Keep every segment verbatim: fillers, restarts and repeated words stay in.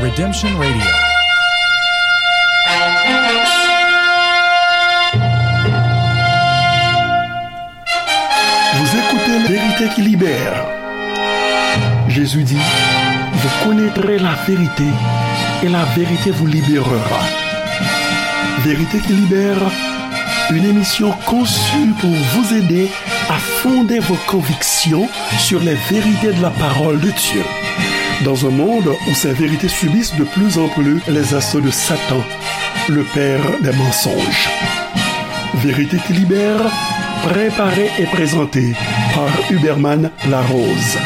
Redemption Radio. Vous écoutez Vérité qui libère. Jésus dit, vous connaîtrez la vérité et la vérité vous libérera. Vérité qui libère, une émission conçue pour vous aider à fonder vos convictions sur les vérités de la parole de Dieu. Dans un monde où ces vérités subissent de plus en plus les assauts de Satan, le père des mensonges. Vérité qui libère, préparée et présentée par Huberman Larose.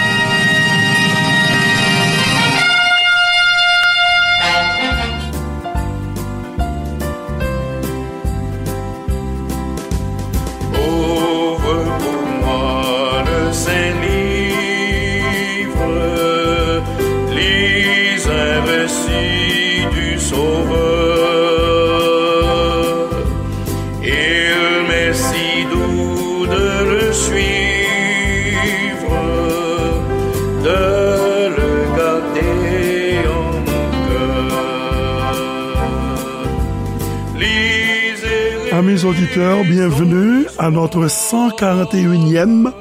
Ouvre pour moi le Saint-Livre, lis un récit du Sauveur. Il m'est si doux de le suivre, de le garder en mon cœur. Amis auditeurs, bienvenue à notre cent quarante et unième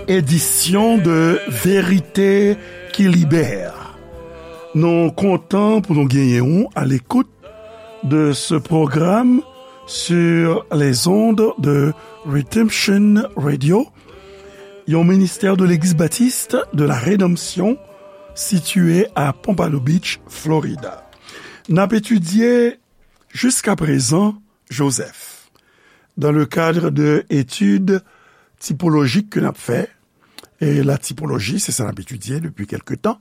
édition de Vérité qui libère. Nou kontan pou nou genyen w à l'écoute de ce programme sur les ondes de Redemption Radio, yon ministère de l'Église baptiste de la Rédemption situé à Pompano Beach, Florida. N ap etidye jiskaprezan Joseph dans le cadre de études typologiques que n ap fè. E la tipoloji, se sa n ap etidye depi kèlke tan.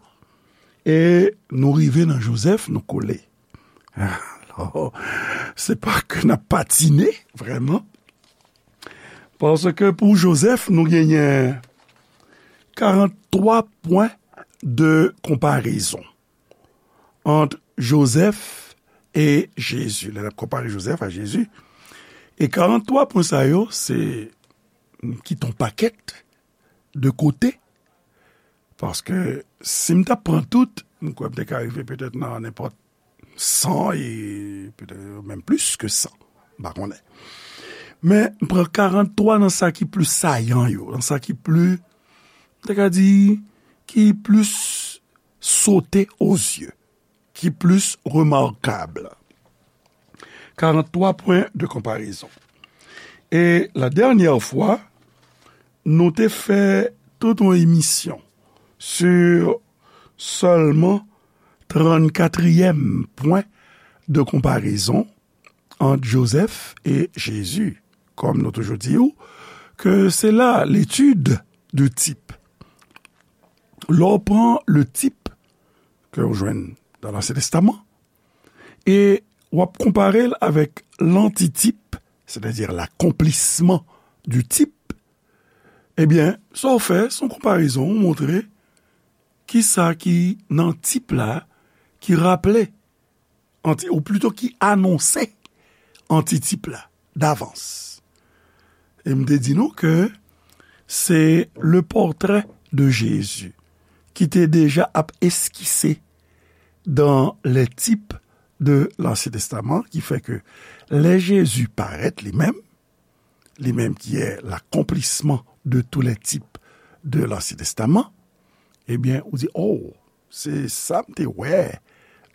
E nou rive nan Joseph, nou kole. Alò, se pa ke n ap patine, vrèman. Paske pou Joseph, nou genyen karant twa pwen de konparezon ant Joseph e Jezi. Lè n ap konpare Joseph a Jezi, e karant twa pwen sa yo, se m kite yon pakèt de kote, paske si m t ap pran tout, m kwè m te ka rive petèt nan nenpòt san e petèt menm plis ke san, m pa konnen. Men m pran karant twa nan sa ki pli sayan yo, nan sa ki pli, m te ka di, ki plis sote aux yeux, ki plis remakab. Karant twa pwen de konparezon. E la dènyè fwa, nou te fè tout yon emisyon sou sèlman trannkatriyèm pwen de konparezon ant Joseph e Jezi. Kòm nou toujou di w, ke se la l'étude du type. Lè w pran le type ke w jwenn dans l'Ancien Testament, e w ap konpare l avèk lantitip, sètadi l'accomplissement du type, ebyen, sa w fè, se yon konparezon, ou montre kisa ki nan tip la, ki raple, anti-, ou plito ki anonse antitip la, davans. E m te di nou ke se le portrait de Jésus ki te deja ap eskise dans les types de l'Ancien Testament, ki fè ke lè Jezi parèt li menm, li menm ki est l'accomplissement de tous les types de l'Ancien Testament, ebyen, ou di, oh, se sa m te wè,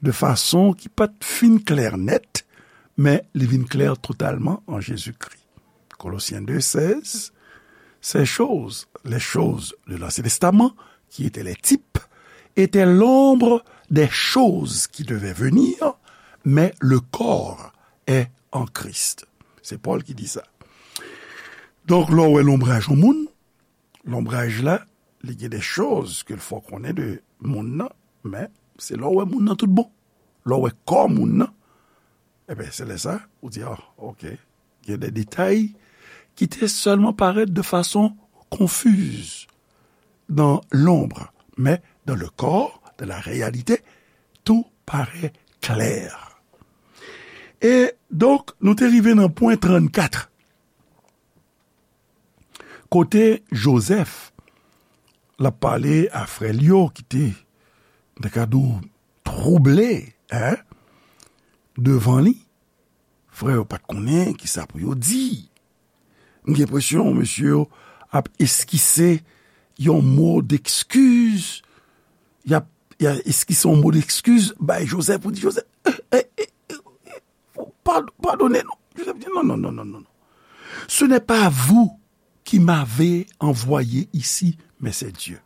de fason ki pa t fin klè nèt, men li vin klè totalman an Jezikri. Colossiens deux seize, ces choses, les choses de l'Ancien Testament, qui étaient les types, étaient l'ombre des choses qui devaient venir, mais le corps est en Christ. Se Pòl ki di sa. Donk, lè w wè lonbraj yon moun, lonbraj la, li gen de choz ke l fè w konnen de moun nan, men se lè w wè moun nan tout bon. Lè w wè kò moun nan, ebyen, se lè sa, ou di, ah, ok, gen de detay ki te sèlman parèt de fason konfiz dans l'ombre, mais dans le corps, dans la réalité, tout paraît clair. E donk, nou te rive nan pwen trannkat. Kote Jozèf, l ap pale a frè l yo ki te, m ta ka di w, twouble, en, devan li. Frè yo pa t konnen kisa pou yo di. M gen enpresyon mesye yo ap eskise yon mo dekskiz. Y ap, y ap eskise yon mo dekskiz bay Jozèf pou di, Jozèf, eh, eh, eh, eh, eh, pad-, padone nou. Jozèf di, non, non, non, non, non, non. Ce n'est pas vous qui m'avez envoyé ici, mais c'est Dieu.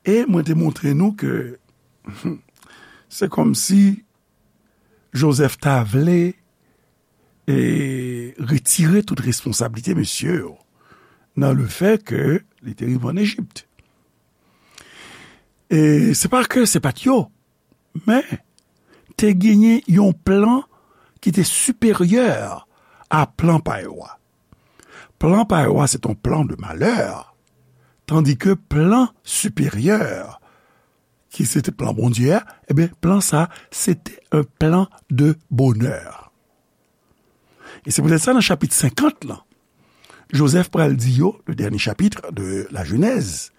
E mwen te montre nou ke se kòmsi Jozèf ta vle e retire tout responsablite mesye yo nan le fè ke li te rive ann Ejip. E se pa ke se pa t yo, men te genyen yon plan ki te siperyè a plan pa yo a. Plan pa yo a, se te yon plan de malè, tandike plan siperyè, ki se te plan Bondye a, ebyen, plan sa, se te yon plan de bonè. E se poutèt sa, nan chapit senkant lan, Jozèf pral di yo, le dernier chapitre de la Genèse,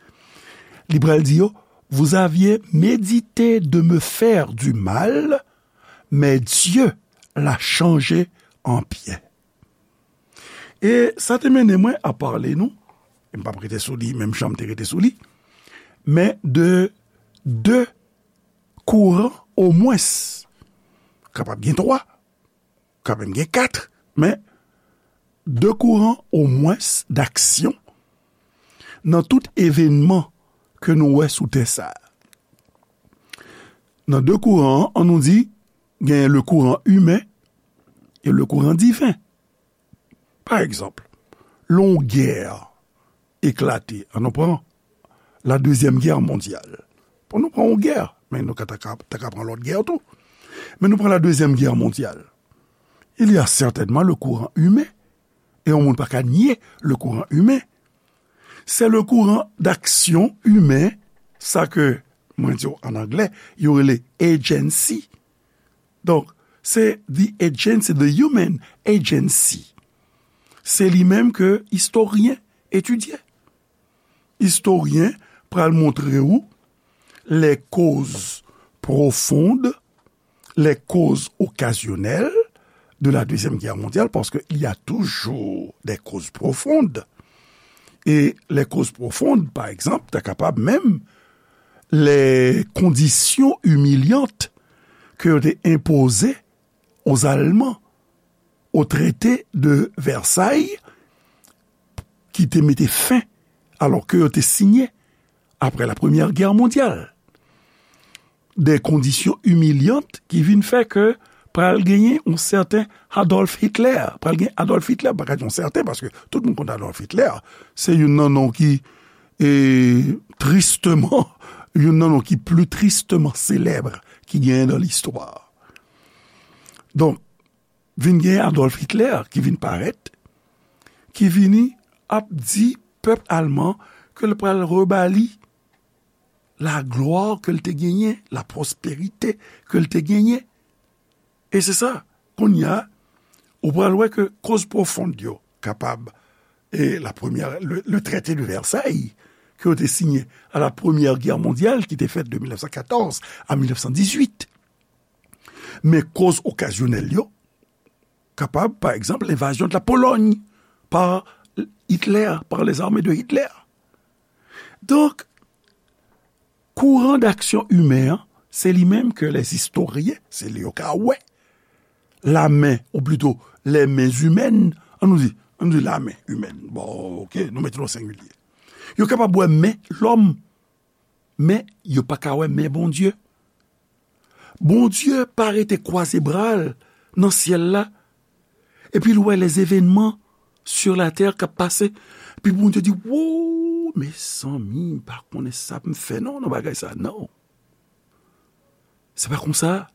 li pral di yo, vous aviez médité de me faire du mal, mais Dieu l'a changé en bien. E sa te mennen mwen a pale nou, e m p ap rete sou li, menm jan m te rete sou li, men de de kouran omwens, kapab gen twa, kapab gen kat, men de kouran omwens d'aksyon nan tout evènman ke nou wè sou tè sa a. Nan de kouran an, an nou di, gen le kouran imen e le kouran diven. Pa egzanp, lè yon gè eklate, an nou pran la Dezyèm Gè Mondyal. Bon, nou pran yon gè, men nou ka, ta ka, ta ka pran lòt gè tou. Men nou pran la Dezyèm Gè Mondyal. Il y a certainement le courant humain. E yon moun pa ka nye le courant humain. Se le courant d'action humain, sa ke mwen di w an anglè, yo rele agency. Donk, se the agency, the human agency. Se li menm ke istoryen etidye. Istoryen pral montre w les causes profondes, les causes occasionnelles de la Deuxième Guerre mondiale, parce qu'il y a toujours des causes profondes. Et les causes profondes, par exemple, ta kapab menm les conditions humiliantes ke yo te enpoze aux Allemands au traité de Versailles, ki te mete fen, alò ke yo te siyen apre la Première Guerre mondiale, de kondisyon imilyan ki vin fè ke pral genyen yon sèten Adolf Hitler. Pral gen Adolf Hitler, pa ka di yon sèten, paske tout moun konn Adolf Hitler. Se youn nan non ki, e, tristeman, youn nan non ki pli tristeman selèb ki genyen nan listwa. Donk, vin gen Adolf Hitler ki vin parèt, ki vini ap di pèp alman ke l pral rebali laglwa ke l te genyen, lapwosperite ke l te genyen. E se sa, kounye a, ou pral wè ke koz pwofon yo kapab, e la premyè, le, le traité de Versailles, ke yo te siyen à la Première Guerre mondiale, ki te fèt de mil nèf san katòz a mil nèf san dizuit. Men koz okazyonèl yo, kapab, pa egzanp, lenvazyon de la Pologne par Hitler, par les armées de Hitler. Donk, kouran d'aksyon imen an, se li menm ke les historiens, se li yo ka wè, la men, ou plito, les mains humaines, an nou di, an nou di la men imèn. Bon, oke, nou mete l o sengilye. Yo kapab wè men lòm, men yo pa ka wè men Bondye. Bondye pa rete kwaze bra l nan syèl la, epi l wè les événements sur la terre k ap pase. Epi Bondye di, "Wo, mezanmi, m pa konnen sa pou m fè non, nan bagay sa, non." Se pa konsa.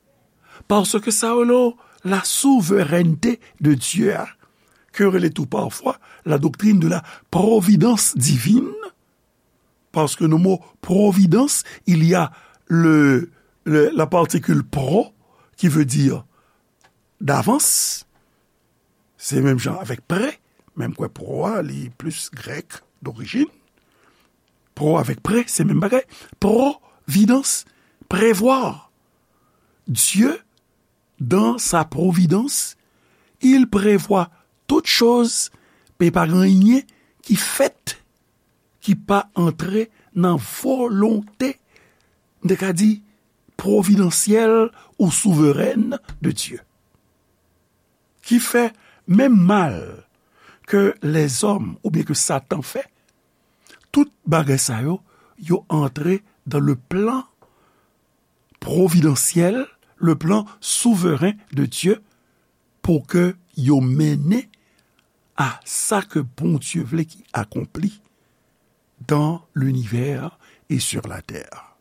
Paske sa yo rele la souveraineté de Dieu a, ke yo rele tou pafwa la doctrine de la providence divine, parce que le mot providence, il y a le, le, la particule pro, qui veut dire d'avance. Se menm jan avèk prè, menm kwè pro a, li plis grèk dorijin. Pro avèk prè, se menm bagay. Providence, prévoir. Dieu, dans sa providence, il prévoit toutes choses, men pa gen anyen ki fèt ki pa antre nan volonte, m te ka di, pwovidansyèl ou souverèn de Dye. Ki fè menm mal ke lèzòm oubyen ke Satan fè, tout bagay sa yo, yo antre dans le plan providentiel, le plan souverain de Dieu, pou ke yo mennen a sa ke Bondye vle ki akonpli dans l'univers et sur la terre.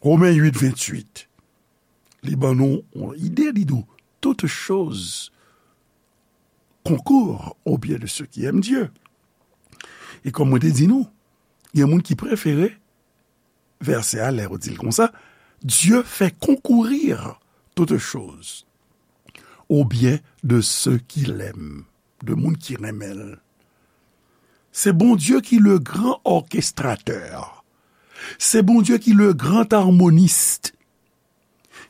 Romen uit, venntuit, li ban nou yon ide, li di w, toutes choses concourent au bien de ceux qui aiment Dieu. E kòm mwen te di nou, gen moun ki prefere vèsè a lè yo di l konsa, Dieu fait concourir toutes choses au bien de ceux qui l'aiment, de moun ki renmen l. Se Bondye ki le gran orkestrateur. Se Bondye ki le gran armonist,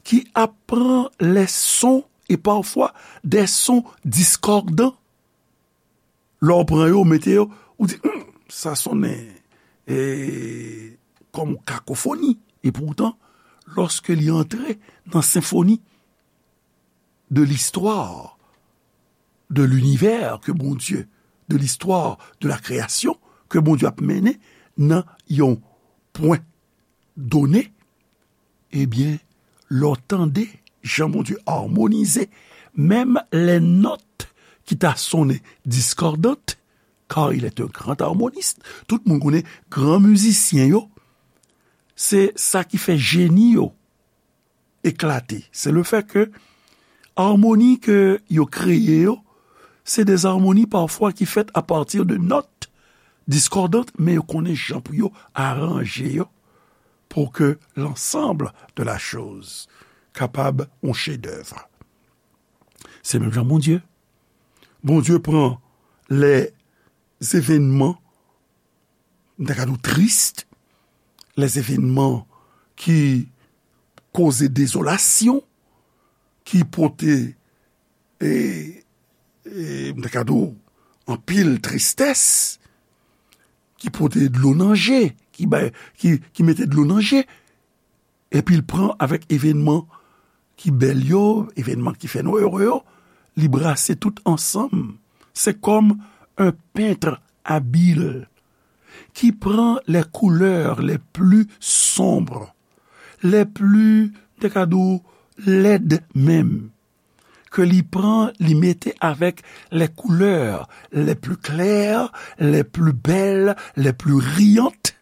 ki ap pran les sons et parfois des sons discordants. Lè w pran yo, mete yo, ou di, hmm, sa sonnen e, kòm kakofoni. E poutan, lòske li antre nan senfoni de l'histoire de l'univers ke Bondye, de l'histoire de la création ke Bondye ap mennen nan yon pwen done, ebyen, lè w tande jan Bondye armonize menm les notes ki ta sonnen discordant, car il est un grand harmoniste. Tout moun konnen gran mizisyen yo, se sa ki fè jeni yo eklate. Se le fè ke armoni ke yo kreye yo, se de armoni pafwa ki fèt a pati de nòt diskòdant, men yo konnen jan pou yo aranje yo pou ke l'ensemble de la chose kapab yon chedèv. Se menm jan Bondye. Bondye pran les événements, m ta ka di w, tris, les événements ki koze dezolasyon, ki pote, e, e, m ta ka di w, anpil tristès, ki pote dlo nan je, ki bay, ki, ki mete dlo nan je, epi l pran avèk evènman ki bèl yo, evènman ki fè nou ere yo, li brase tout ansanm. Se kòm un peintre habile qui prend les couleurs les plus sombres, les plus, m te ka di w, lèd menm, ke li pran, li mete avèk les couleurs les plus claires, les plus belles, les plus riantes,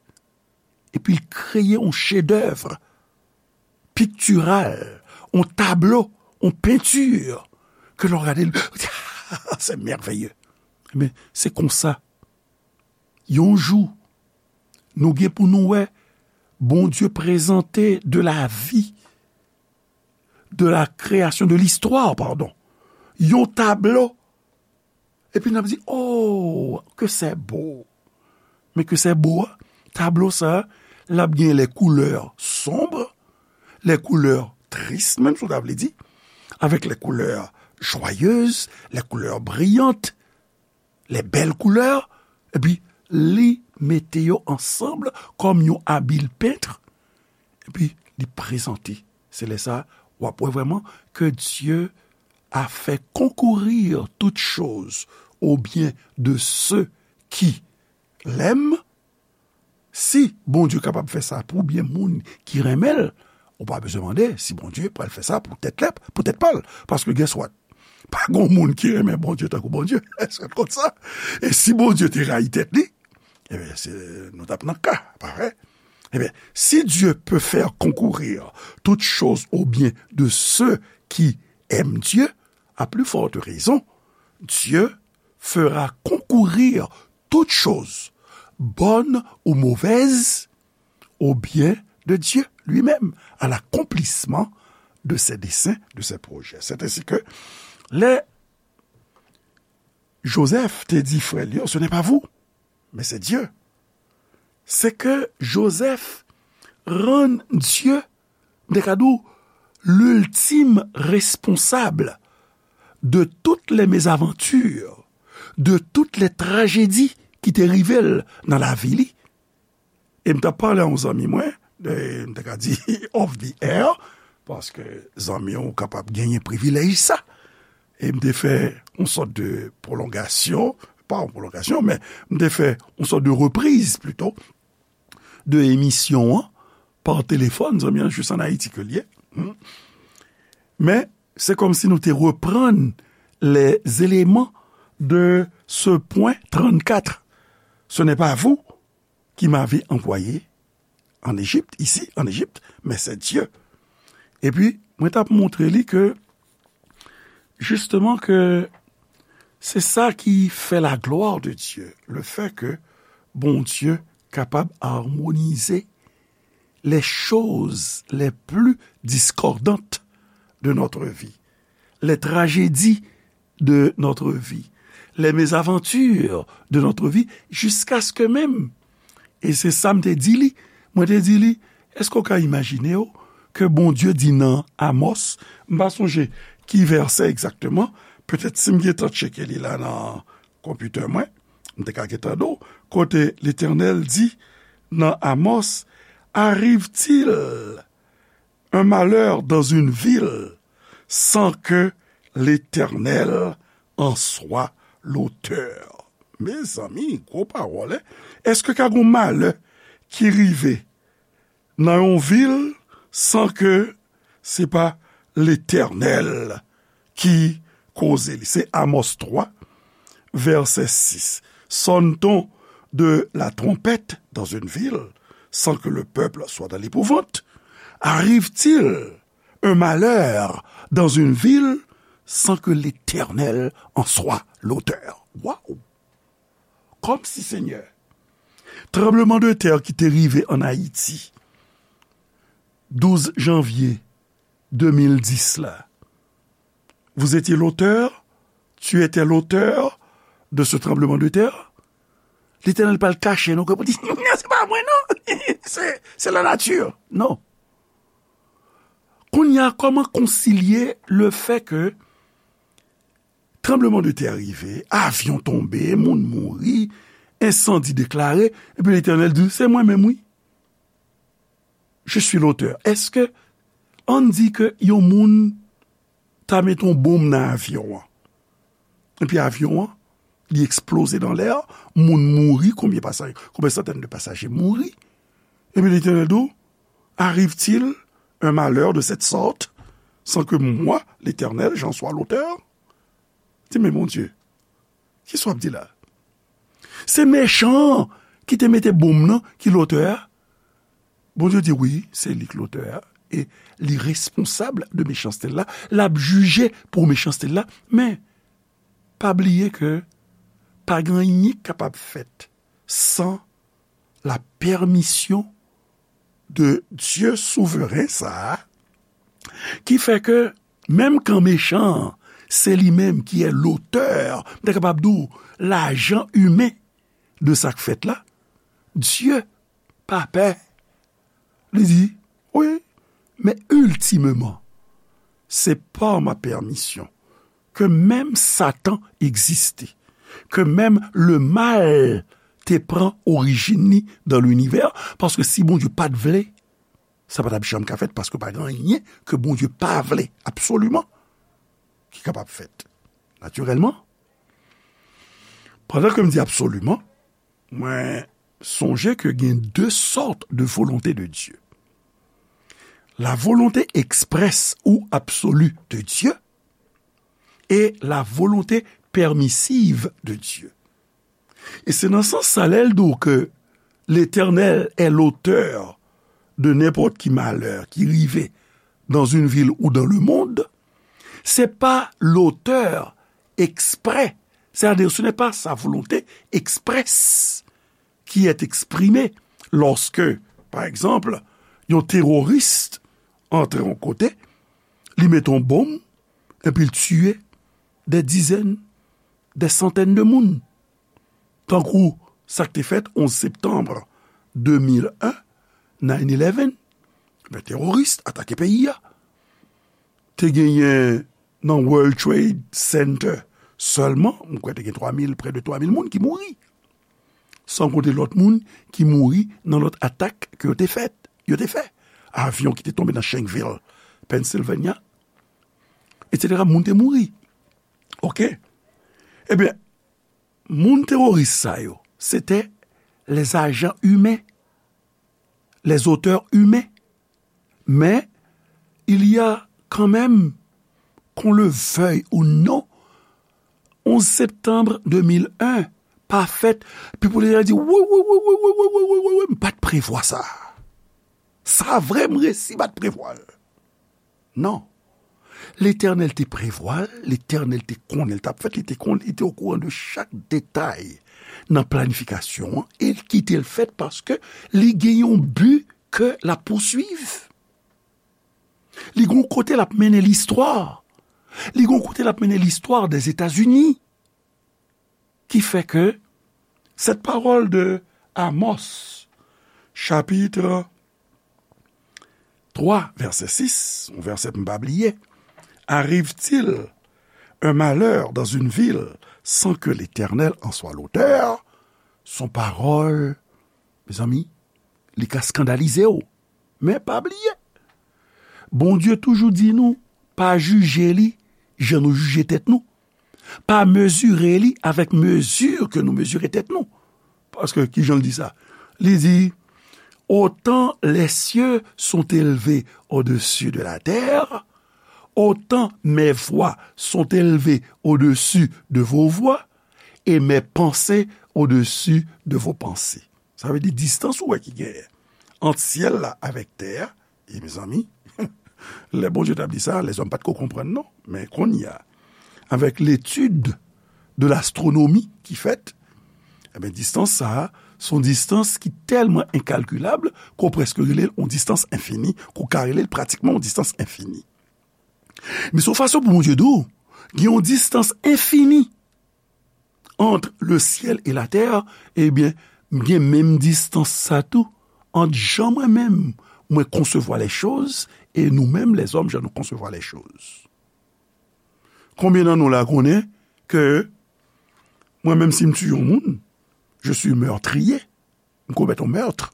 epi l kreye yon chedèv piktiral, yon tablo, yon penti, ke lè w gade l, w di, ah, c'est merveilleux. Ebyen, se konsa, yon jou, nou gen pou nou wè Bondye prezante de la vie, de la création, de l'histoire, pardon, yon tablo. Epi n ap di, oh, que c'est beau. Men ke se bo a, tablo sa a, l ap gen les couleurs sombres, les couleurs tristes, menm si w ta vle di, avec les couleurs joyeuses, les couleurs brillantes, les belles couleurs, epi li mete yo ansanm kòm yon abil pent, epi li prezante. Se lè sa a, w ap wè vrèman que Dieu a fait concourir toutes choses au bien de ceux qui l'aiment. Si Bondye kapab fè sa pou byen moun ki renmen l, ou pa bezwen mande si Bondye pral fè sa pou tèt lè, pou tèt pa l. Paske, guess what? Pa gon moun ki renmen Bondye tankou Bondye. Èske w konn sa? E si Bondye te rayi tèt li, ebyen, se, nou t ap nan ka, pa vre? Ebyen, si Dieu peut faire concourir toutes choses au bien de ceux qui aiment Dieu, à plus forte raison, Dieu fera concourir toutes choses, bonnes ou mauvaises, au bien de Dieu lui-même, à l'accomplissement de ses desseins, de ses projets. C'est ainsi que lè Joseph te di frè l yo, ce n'est pas vous, mais c'est Dieu. Se ke Joseph rann Dye, m te ka di w, l'ultime responsable de toutes les mésaventures, de toutes les tragédies ki te rive l nan lavi li. E m t ap pale a yon zanmi mwen, e m te ka di off the air, paske zanmi w kapab genyen privilèj sa. E m te fè yon sòt de pwolongasyon, pa yon pwolongasyon, men m te fè yon sòt de repriz plito, de emisyon an pa telefòn, zanmi an jis ann Ayiti ke l ye. Hmm. Men, se kòmsi nou te reprann les éléments de ce point trente-quatre. Ce n'est pas vous qui m'avez envoyé en Égypte, ici, en Égypte, mais c'est Dieu. Epi, mwen t ap montre li ke, jisteman, ke se sa ki fè la gloire de Dieu, le fait que Bondye kapab armonize les choses les plus discordantes de notre vie, les tragédies de notre vie, les mésaventures de notre vie, jusqu'à ce que même, e se sa m te di li, mwen te di li, èske w ka imajine w ke Bondye di nan Amòs, m pa sonje ki vèsè egzakteman, petèt si m gentan tcheke li la nan konpitè mwen, m te ka gentan di w, kote Letènèl di nan Amòs, arrive-t-il un malheur dans une ville sans que l'Éternel en soit l'auteur? Mezanmi, gwo pawòl, en. Èske ka gon malè ki rive nan yon vil san ke se pa Letènèl ki koze li? Se Amòs twa, vèsè sis. Sonne-t-on de la trompette dans une ville sans que le peuple soit dans l'épouvante? Arrive-t-il un malheur dans une ville sans que l'Éternel en soit l'auteur? Waw! Kòmsi, Senyè, tranbleman de tè ki te rive ann Ayiti, douz janvye de mil dis la, vous étiez l'auteur, tu étais l'auteur de ce tremblement de terre? Letènèl pral kache nou, ke pou di, non, se pa mwen, non. Se, se la nature. Non. Kounye a, kòman konsilye le fait que tranbleman de tè rive, avyon tonbe, moun mouri, ensandi deklare, epi Letènèl di, se mwen menm, wi. Je suis l'auteur. Èske, ann di ke yon moun ta mete yon bonm nan avyon an, epi avyon an, li eksploze nan lè a, moun mouri, konbyen pasaje, konbyen santèn de pasaje mouri, epi Letènèl di w, arrive-t-il un malheur de cette sorte sans que moi, l'Éternel, j'en sois l'auteur? Di, men Bondye, kisa w ap di la? Se mechan an ki te mete bonm nan ki lotè a? Bondye di, wi, se li k lotè a, e li responsab de mechanste l la, l ap jije pou mechanste l la, men pa bliye ke pa gen anyen k kapab fèt san la pèmisyon de Dye souveren sa a, ki fè ke menm kan mechan an, se li menm ki è lotè, m ta kapab di w, lajan imen de sa k fèt la, Dye pa pè. Li di, wi, men iltimeman, se pa ma pèmisyon ke menm Satan egziste, ke menm lemal te pran orijin li dan linivè, paske si Bondye pa t vle, sa pa t ap janm ka fèt, paske pa gen anyen ke Bondye pa vle, absoliman, ki kapab fèt. Natirèlman, pandan ke m di absoliman, mwen sonje ke gen de sòt de volonte de Dye. La volonté expresse ou absolue de Dieu et la volonté permissive de Dieu. E se nan sans sa, lè l di w ke Letènèl è lotè de nenpòt ki malè ki rive dans une ville ou dans le monde, se pa lotè eksprè, c'est-à-dire ce n'est pas sa volonté expresse qui est exprimée lorsque, par exemple, yon teworis antre yon kote, li mete yon bonm, epi l tiye dè dizèn, dè santèn de moun. Tankou sa k te fèt onz septanm de mil en, nine eleven, ben, teworis atake peyi a. Te genyen nan World Trade Center sèlman, m kwè te gen twa mil, prè de twa mil moun ki mouri. San konte lòt moun ki mouri nan lòt atak ke yo te fèt, yo te fè. Avyon ki te tonbe nan Shanksville, Pennsylvania, etsetera. Moun te mouri. Oke? Ebyen, moun teworis sa yo, se te les agents humains, les auteurs humains. Mais il y a quand même, qu'on le veuille ou non, onze septembre deux mille un pa fèt, epi pou lè di, wi, wi, wi, m pa t prevwa sa. Sa vre, m resi pa t prevwa l. Non. Letènèl te prevwa l, Letènèl te konnen l t ap fèt, li te konnen, li te okouran de chak detay nan planifikasyon an, e l kite l fèt paske li gen yon bi ke l ap pouswiv. Li gen yon kote l ap mennen listwa. Li gen yon kote l ap mennen listwa dèzetazini. Ki fè ke cette parole de Amos, chapitre trois, verset six, yon vèsè pou m pa bliye, arrive-t-il un malheur dans une ville sans que l'Éternel en soit l'auteur? Son pawòl, mezanmi, li ka eskandalize w. Men pa bliye, Bondye toujou di nou, pa jije li jan nou jije tèt nou. Pa mezire li avèk mezi ke nou mezire tèt nou. Paske, ki jan l di sa? Li di, autant les cieux sont élevés au-dessus de la terre, autant mes voies sont élevées au-dessus de vos voies, et mes pensées au-dessus de vos pensées. Sa vle di distans ou wè ki genyen ant syèl la avèk tè a, e mezanmi, lè Bondye t ap di sa, lèzòm pa t ko konprann non. Men kounye a, avèk letid de lastwonomi ki fèt, ebyen, distans sa a, se yon distans ki tèlman enkalkilab ke w prèske rele l yon distans enfini, ke w ka rele l pratikman yon distans enfini. Men se yon fason pou Bondye di w, gen yon distans enfini entre le ciel et la terre, ebyen, m gen menm distans sa tou ant jan mwen menm, mwen konsevwa lèchoz, e nou menm, lèzòm, jan nou konsevwa lèchoz. Konbyen nan nou la konnen ke mwen menm, si m tiye yon moun, je suis meurtrier, m komèt yon mèt.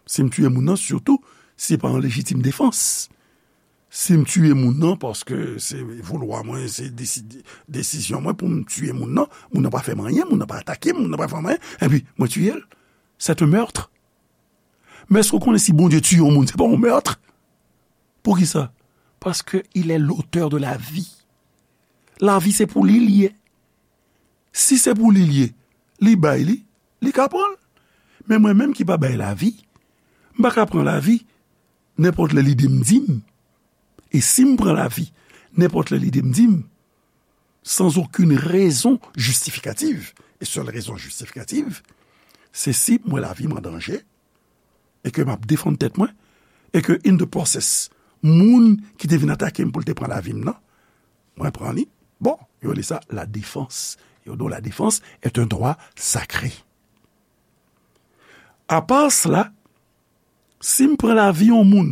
Si m tiye moun nan, sitou, se pa an lejitim defans. Si m tiye moun nan paske se voulwa mwen, se desi-, desizyon mwen pou m tiye moun nan, moun nan pa fè m anyen, moun nan pa atake m, moun nan pa fè m anyen, epi mwen tiye l, c'est un meurtre. Men èske w konnen si Bondye tiye yon moun, se pa yon mèt? Poukisa? Paske il est l'auteur de la vie. Lavi se pou li l ye. Si se pou li l ye, li bay li, li ka pran l. Men mwen menm ki pa bay lavi, m pa ka pran lavi nenpòt lè lide m di m. E si m pran lavi nenpòt lè lide m di m, sans aucune raison justificative, e sèl rezon jistifikatif, se si m wè lavi m an danje, e ke m ap defann tèt mwen, e ke in the process, moun ki te vin atake m pou l te pran lavi m nan, mwen pran li. Bon, yo rele sa la défense. Yo di w la défense est un droit sacré. Apa sela, si m pran lavi yon moun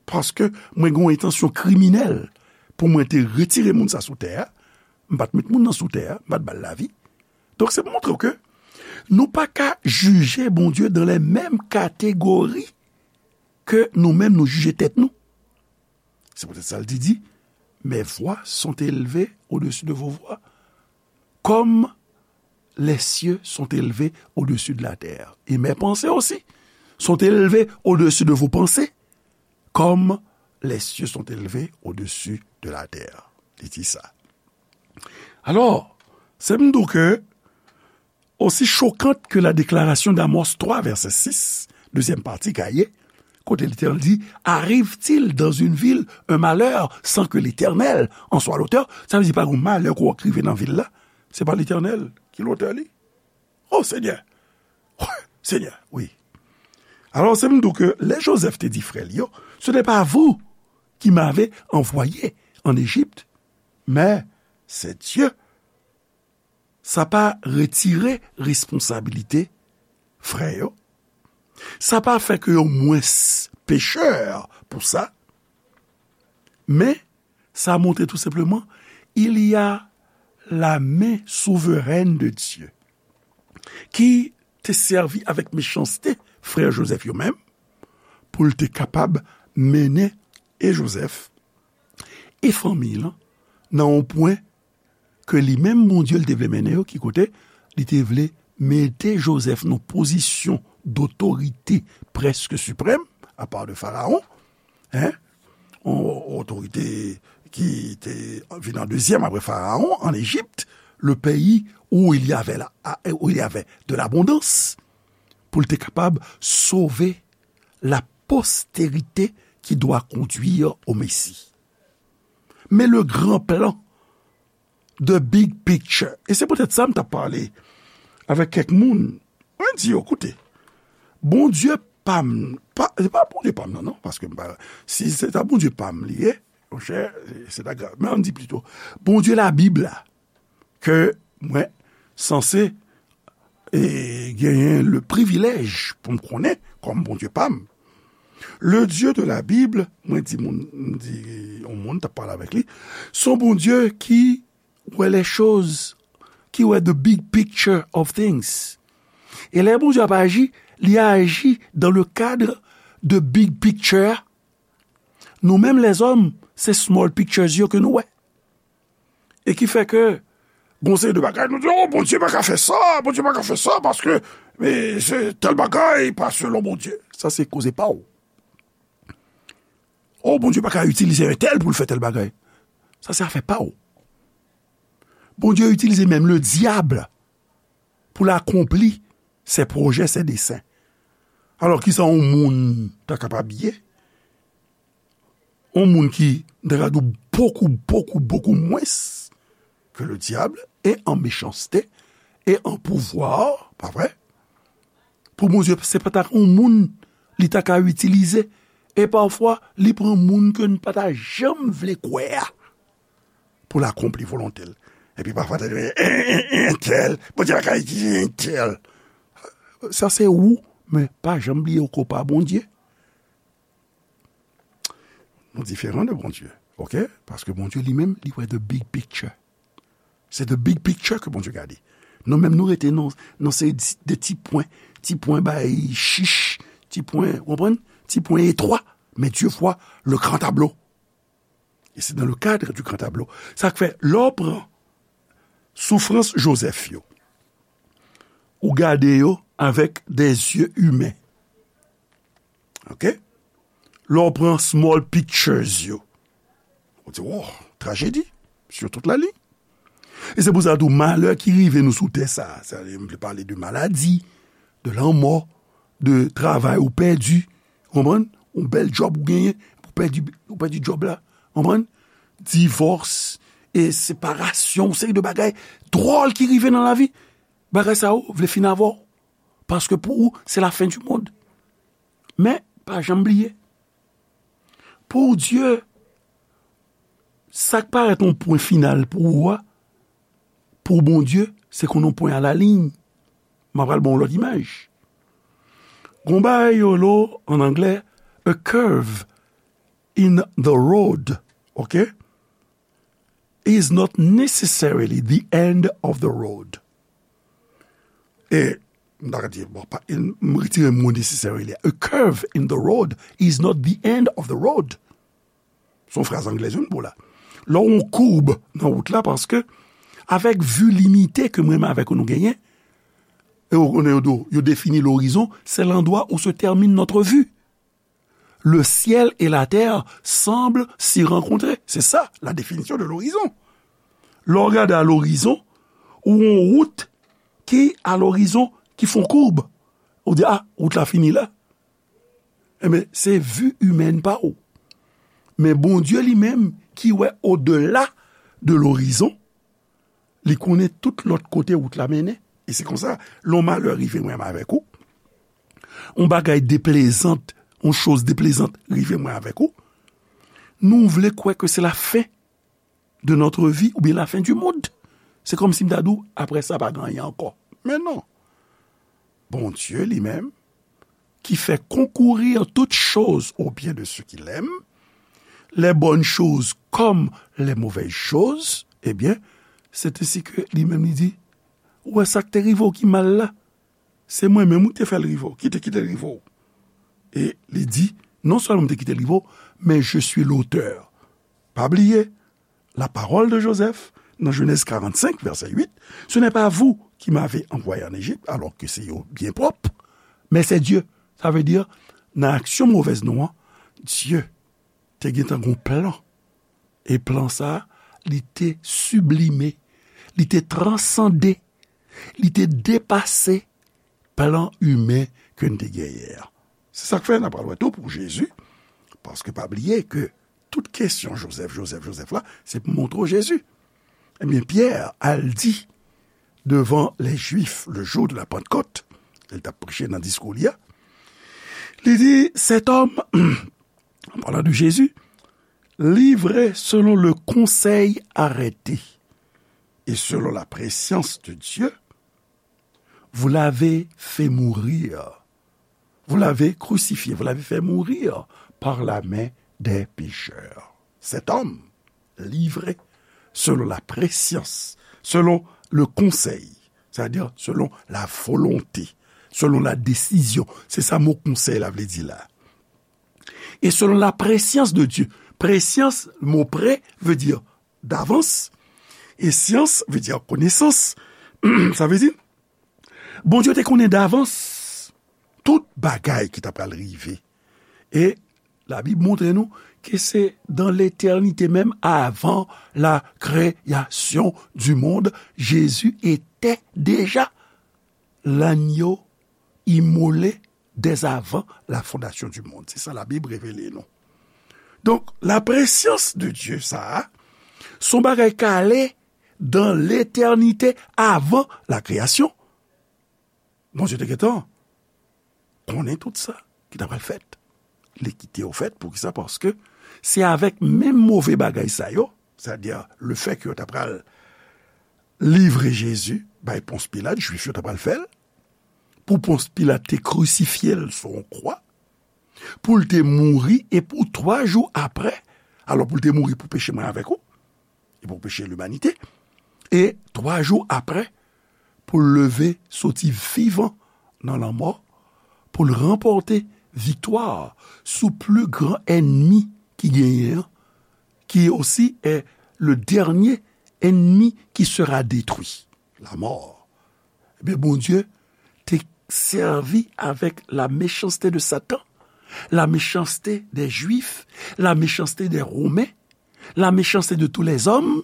paske mwen gen yon entansyon kriminèl pou mwen te retire moun sa sou tè a, m pa t met moun nan sou tè a, m pa t ba l lavi. Donk, se pou montre w ke nou pa ka jije Bondye dans les mêmes catégories ke nou menm nou jije tèt nou. Se poutèt sa l di, di, mes voies sont élevées au-dessus de vos voies, comme les cieux sont élevés au-dessus de la terre. Et mes pensées aussi sont élevées au-dessus de vos pensées, comme les cieux sont élevés au-dessus de la terre. Li di sa. Alò, se m di w ke aussi choquante que la déclaration d'Amos trois, verset six, dezyèm pati ka ye, kote Letènèl di, arrive-t-il dans une ville un malheur sans que l'Éternel en soit l'auteur? Sa vle di pa gen malè ki rive nan vil la, se pa Letènèl ki lotè li. Oh, Senyè! Senyè, wi. Alò, se m di w ke lè Jozèf te di frè l yo, ce n'est pas vous qui m'avez envoyé en Égypte, mais c'est Dieu. Sa pa retire responsabilite frè yo. Sa pa fè ke yo mwens pechè pou sa, men sa montre tou senpleman, il y a la main souveraine de Dieu, ki te sèvi avèk mechanste frè Jozèf yo menm, pou l te kapab mennen e Jozèf e fanmi l nan yon pwen ke li menm Bondye l te vle mennen yo, ki kote li te vle mete Jozèf nan pozisyon dotorite prèske siprèm, apa de Farawon, en, yon otorite ki te vin an dezyèm apre Farawon, an Ejipt, le pays où il y avait la, où il y avait de l'abondance, pou l te kapab sove la postérité qui doit conduire au Messie. Men le grand plan, the big picture. E se poutèt sa m t ap pale avèk kèk moun. Mwen di yo, koute, Bondye pa m, pa, se pa Bondye pa m nan, non, paske m pa, si se ta Bondye pa m li ye, monchè, se ta grav. Men ann di plito, Bondye Labib la, ke mwen sanse e genyen le privilèj pou m konnen kòm Bondye pa m. Le Dieu de la Bible, mwen di moun, m di yon moun, t ap pale avèk li, se yon Bondye ki wè les choses, ki wè the big picture of things. E lè Bondye ap aji, li aji dans le cadre de big picture. Nou menm lèzòm, se small pictures yo ke nou wè. E ki fè ke gon seri de bagay, nou di, "Oh, Bondye pa ka fè sa, Bondye pa ka fè sa, paske, e, se tèl bagay pa selon Bondye." Sa se koze pa w. "Oh, Bondye pa ka itilize entèl pou l fè tèl bagay." Sa se afè pa w. Bondye itilize menm le dyab pou l akonpli ses projets, ses desseins. Alò, kisa yon moun ta kapab ye? Yon moun ki, m ta ka di w, bokou, bokou, bokou mwens ke le dyab, e an mechanste, e an pouvwa, pa vre? Pou Bondye, se pa ta yon moun li ta ka itilize. E pafwa, li pran moun ke n pa ta janm vle kwè a pou l akonpli volonte l. Epi pafwa, ta di, "Entèl, Bondye pa ka itilize entèl." Sa se ou, men pa janm bliye ou ko pa Bondye. Nou diferan de Bondye, oke? Paske Bondye li menm, li wè the big picture. Se the big picture ke Bondye gade. Nou menm, nou rete nan, nan se de ti pwen, ti pwen bay chich, ti pwen, w konprann? Ti pwen etwa. Men Dye vwa le gran tablo. E se dans le cadre du grand tableau. Sa k fè, lè w pran soufrans Jozèf yo, ou gade yo avèk des yeux humains. Oke? Lè w pran small pictures yo, ou di, "Wow, trajedi sur toute la ligne." E se pou sa tou, malè ki rive nou sou tè sa, sa, m vle pale de maladi, de lanmò, de travay ou pèdi, konprann? Yon bèl djòb ou genyen, ou pèdi, ou pèdi djòb la, konprann? Divòs, e separasyon, yon seri de bagay dwòl ki rive nan lavi. Bagay sa yo vle fin avè w. Paske pou ou, se la fen di mond. Men, pa janm bliye, pou Dye, sa k parèt yon pwen final pou ou a, pou Bondye, se kon yon pwen a la liy. M ap pral ba w lòt imaj. Gon bagay yo lo, an anglè, a curve in the road, oke, is not necessarily the end of the road. E, m ta ka di, bon, pa, m retire mo necessarily. A curve in the road is not the end of the road. Se yon fraz anglè, wi, m ba w la. Lè w yon koub nan wout la, paske avèk vi limite ke mwen menm avèk ou nou genyen, e w konnen yo di w, yo defini lorizon, c'est l'endroit où se termine notre vue. Le ciel et la terre semblent s'y rencontrer. C'est ça, la définition de l'horizon. Lè w gade a lorizon, ou yon wout ki a lorizon, ki fè yon koub. Ou di, "Ah, wout la fini la." Enben, se vi imèn pa w. Men Bondye li menm, ki wè odela de lorizon, li konnen tout lòt kote wout la mennen. E se konsa, lè yon malè rive mwen avèk ou, yon bagay deplezant, yon choz deplezant rive mwen avèk ou, nou vle kwè ke se la fen de notre vie oubyen la fen di mond. Se kòmsi m ta di w, apre sa, pa gen anyen ankò. Men non. Bondye li menm, qui fait concourir toutes choses au bien de ceux qu'il aime, les bonnes choses comme les mauvaises choses, eh bien, c'est ainsi que li menm li di, ou wè sa k te rive w ki mal la? Se mwen menm ou te fè l rive w, ki te kite l rive w. E li di, non sèlman m te kite l rive w, men je suis l'auteur. Pa bliye, la parole de Joseph, nan Genèse quarante-cinq, verset huit, ce n'est pas vous qui m'avez envoyé en Égypte, alors que c'est yo byen pwòp, mais c'est Dieu. Sa vle di, nan aksyon movèz nou an, Dye te gentan gon plan. E plan sa, li te siblime, li te transande, li te depase plan imen ke n te genyen an. Se sa k fè n ap pral wè tou pou Jezi, paske pa bliye ke tout kesyon Joseph, Joseph, Joseph la, se pou montre w Jezi. Ebyen, Pyè al di devan les Juifs le jour de la Pentecôte, lè l t ap preche nan diskou li a, li di, cet homme, en parlant de Jésus, livré selon le conseil arrêté et selon la prescience de Dieu, vous l'avez fait mourir. Vous l'avez crucifié, vous l'avez fait mourir par la main des pécheurs. Cet homme livré selon la prescience, selon le conseil, c'est-à-dire selon la volonté, selon la décision. Se sa mo konsèy la vle di la. E selon la prescience de Dieu. Prescience, mo pre vle di davans. E science vle di konesans. Sa vle di, Bondye te konnen davans tout bagay ki ta pral rive. E Labib montre nou ke se dans l'éternité même, avant la création du monde, Jésus était déjà l'agneau immolé dès avant la fondation du monde. Se sa Labib revele nou. Donk, la prescience de Dieu, sa a, se yon bagay k ale dans l'éternité avant la création. Bondye te gentan konnen tout sa ki ta pral fèt. Li kite yo fèt, poukisa? Paske se avèk menm move bagay sa yo, sètadi le fè ke yo ta pral livre Jezi bay Pons Pilat, Jwif yo ta pral fè l, pou Pons Pilat te krisifye l sou yon kwa, pou l te mouri, e pou twa jou apre, alò pou l te mouri pou peche mwen avèk ou, e pou peche limanite, e twa jou apre, pou l leve soti vivan nan lanmò, pou l ranpòte viktwa sou pli gran ènmi ki genyen an, qui aussi est le dernier ennemi qui sera détruit, la mort. Ebyen, Bondye te sèvi avèk la méchanceté de Satan, la méchanceté des Juifs, la méchanceté des Romains, la méchanceté de tous les hommes,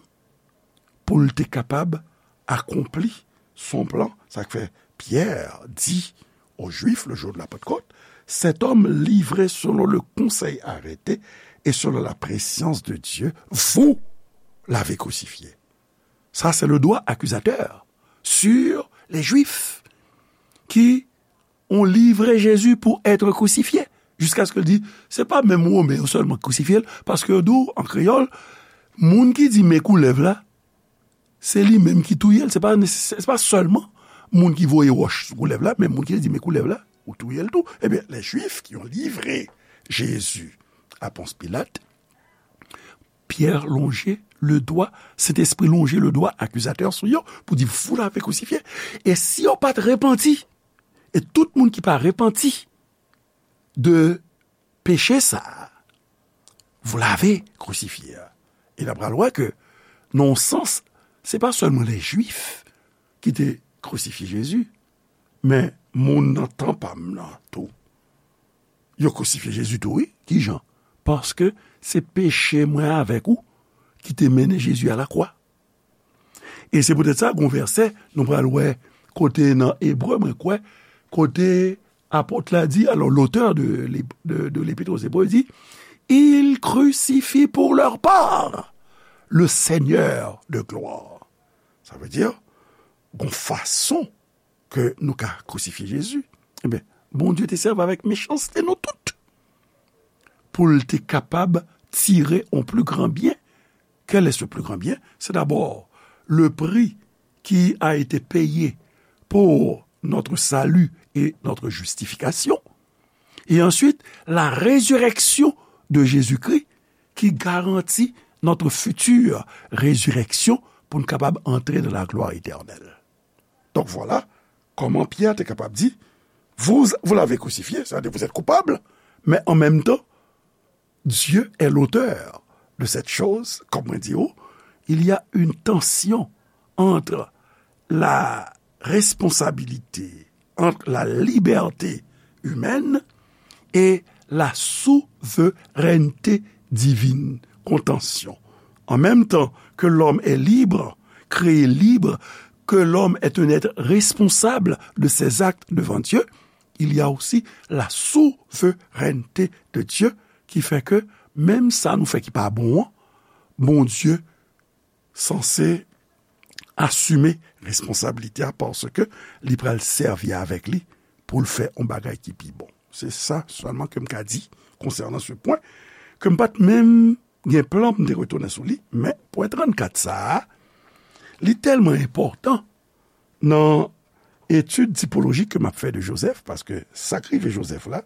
pou l te kapab akonpli son plan. Sa k fè Pyè di aux Juifs le jour de la Pentecôte, cet homme livré selon le conseil arrêté et selon la prescience de Dieu, vous l'avez crucifié. Ça, c'est le doigt accusateur sur les Juifs qui ont livré Jésus pour être crucifié. Jiskaske l di, se pa menm Women yo sèlman k krisifye l, paske yo di w, an kreyòl, moun ki di men koulèv la, se li menm ki touye l. Se pa, se pa sèlman moun ki voye wòch sou koulèv la, men moun ki di men koulèv la, ou touye l tou. Ebyen, les Juifs qui ont livré Jésus à Ponce Pilate, Pyè lonje le dwa, Sentespri lonje le dwa akizatè sou yo pou di, vous l'avez crucifié. E si yo pa t repanti, e tout moun ki pa repanti de peche sa a, vous l'avez crucifié. E n ap pral wè ke, nan yon sans, se pa sèlman les Juifs ki te krisifye Jezi, men moun nan tan pa m nan tou. Yo krisifye Jezi tou, wi. Ki jan? Paske se peche mwen avèk ou ki te mennen Jezi a lakwa. E se poutèt sa, gon vèsè, nou pral wè kote nan Ebre, mwen kwè, kote apot la di, alò, l'auteur de l'ép-, de, de l'Épître aux Hébreux di, ils crucifient pour leur part le Seigneur de gloire. Sa vle di, gon fason ke nou ka krisifye Jezi. Ebyen, Bondye te sèvi avèk mechanste nou tout pou l te kapab tire yon pli gran byen. Quel est ce plus grand bien? C'est d'abord le prix qui a été payé pour notre salut et notre justification. Et ensuite, la résurrection de Jésus-Christ qui garantit notre future résurrection pour nous capables d'entrer dans la gloire éternelle. Donc voilà comment Pierre était capable de dire, vous, vous l'avez crucifié, c'est-à-dire vous êtes coupable, mais en même temps, Dieu est l'auteur de cette chose, comme on dit, oh, il y a une tension entre la responsabilité, entre la liberté humaine et la souveraineté divine. Contention. En même temps que l'homme est libre, créé libre, que l'homme est un être responsable de ses actes devant Dieu, il y a aussi la souveraineté de Dieu ki fè ke menm sa nou fè ki pa bon an, Bondye sanse asime responsablite a paske li pral sèvi avèk li pou l fè yon bagay ki pi bon. Se sa sèlman ke m ka di konsènan se pwen ke m pa t menm gen plan pou m te retounen sou li, men pwen trannkat sa a, li tèlman enpòtan nan etid tipolojik ke m ap fè de Jozèf, paske sa k rive Jozèf la,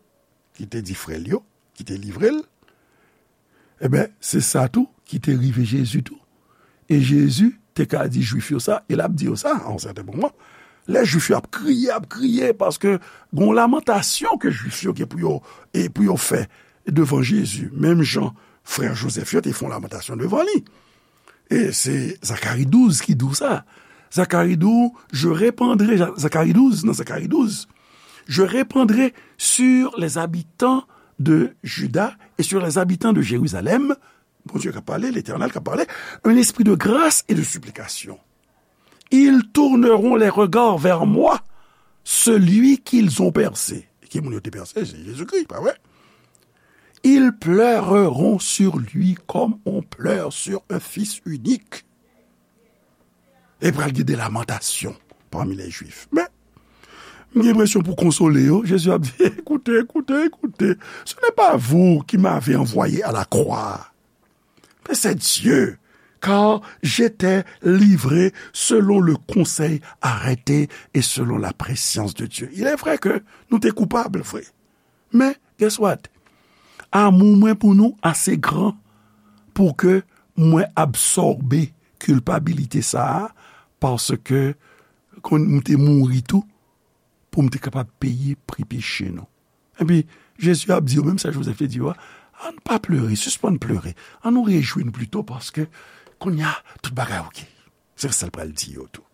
ki te di frè l yo, ki te livre l, enben, se sa tou ki te rive Jezi tou. E Jezi te ka di Jwif yo sa, e l ap di yo sa a yon sèten moman. Lè Jwif yo ap kriye, ap kriye, paske gon lamantasyon ke Jwif yo gen pou yo, e pou yo fè devan Jezi, menm jan frè Jozèf yo te fè yon lamantasyon devan li. E se Zakari douz ki di w sa. Zakari di w, je répandrai, Zakari douz, nan Zakari douz, je répandrai sur les habitants de Juda et sur les habitants de Jérusalem, Bondye k ap pale, Letènèl k ap pale, un esprit de grâce et de supplication. Ils tourneront les regards vers moi, celui qu'ils ont percé. Ki moun yo te pèse? Se Jezikri, pa vre? Ils pleureront sur lui comme on pleure sur un fils unique. E pral gen de lamantasyon pami lè Jwif. Men, m gen enpresyon pou konsole yo, Jezi ap di, écoutez, écoutez, écoutez, ce n'est pas vous qui m'avez envoyé à la croix, mais c'est Dieu, car j'étais livré selon le conseil arrêté et selon la prescience de Dieu. Il est vrai que nou te koupab, vre. Men, guess what? Amou mwen pou nou ase gran pou ke mwen absòbe kilpabilite sa a, paske kon m te mouri tou pou m te kapab peye pri peche nou. Epi, Jezi ap di yo menm sa Jozèf te di yo a, ann pa plere, sispann plere, ann nou rejwi nou plito paske kounye a tout bagay oke. Se sa l pral di yo tou.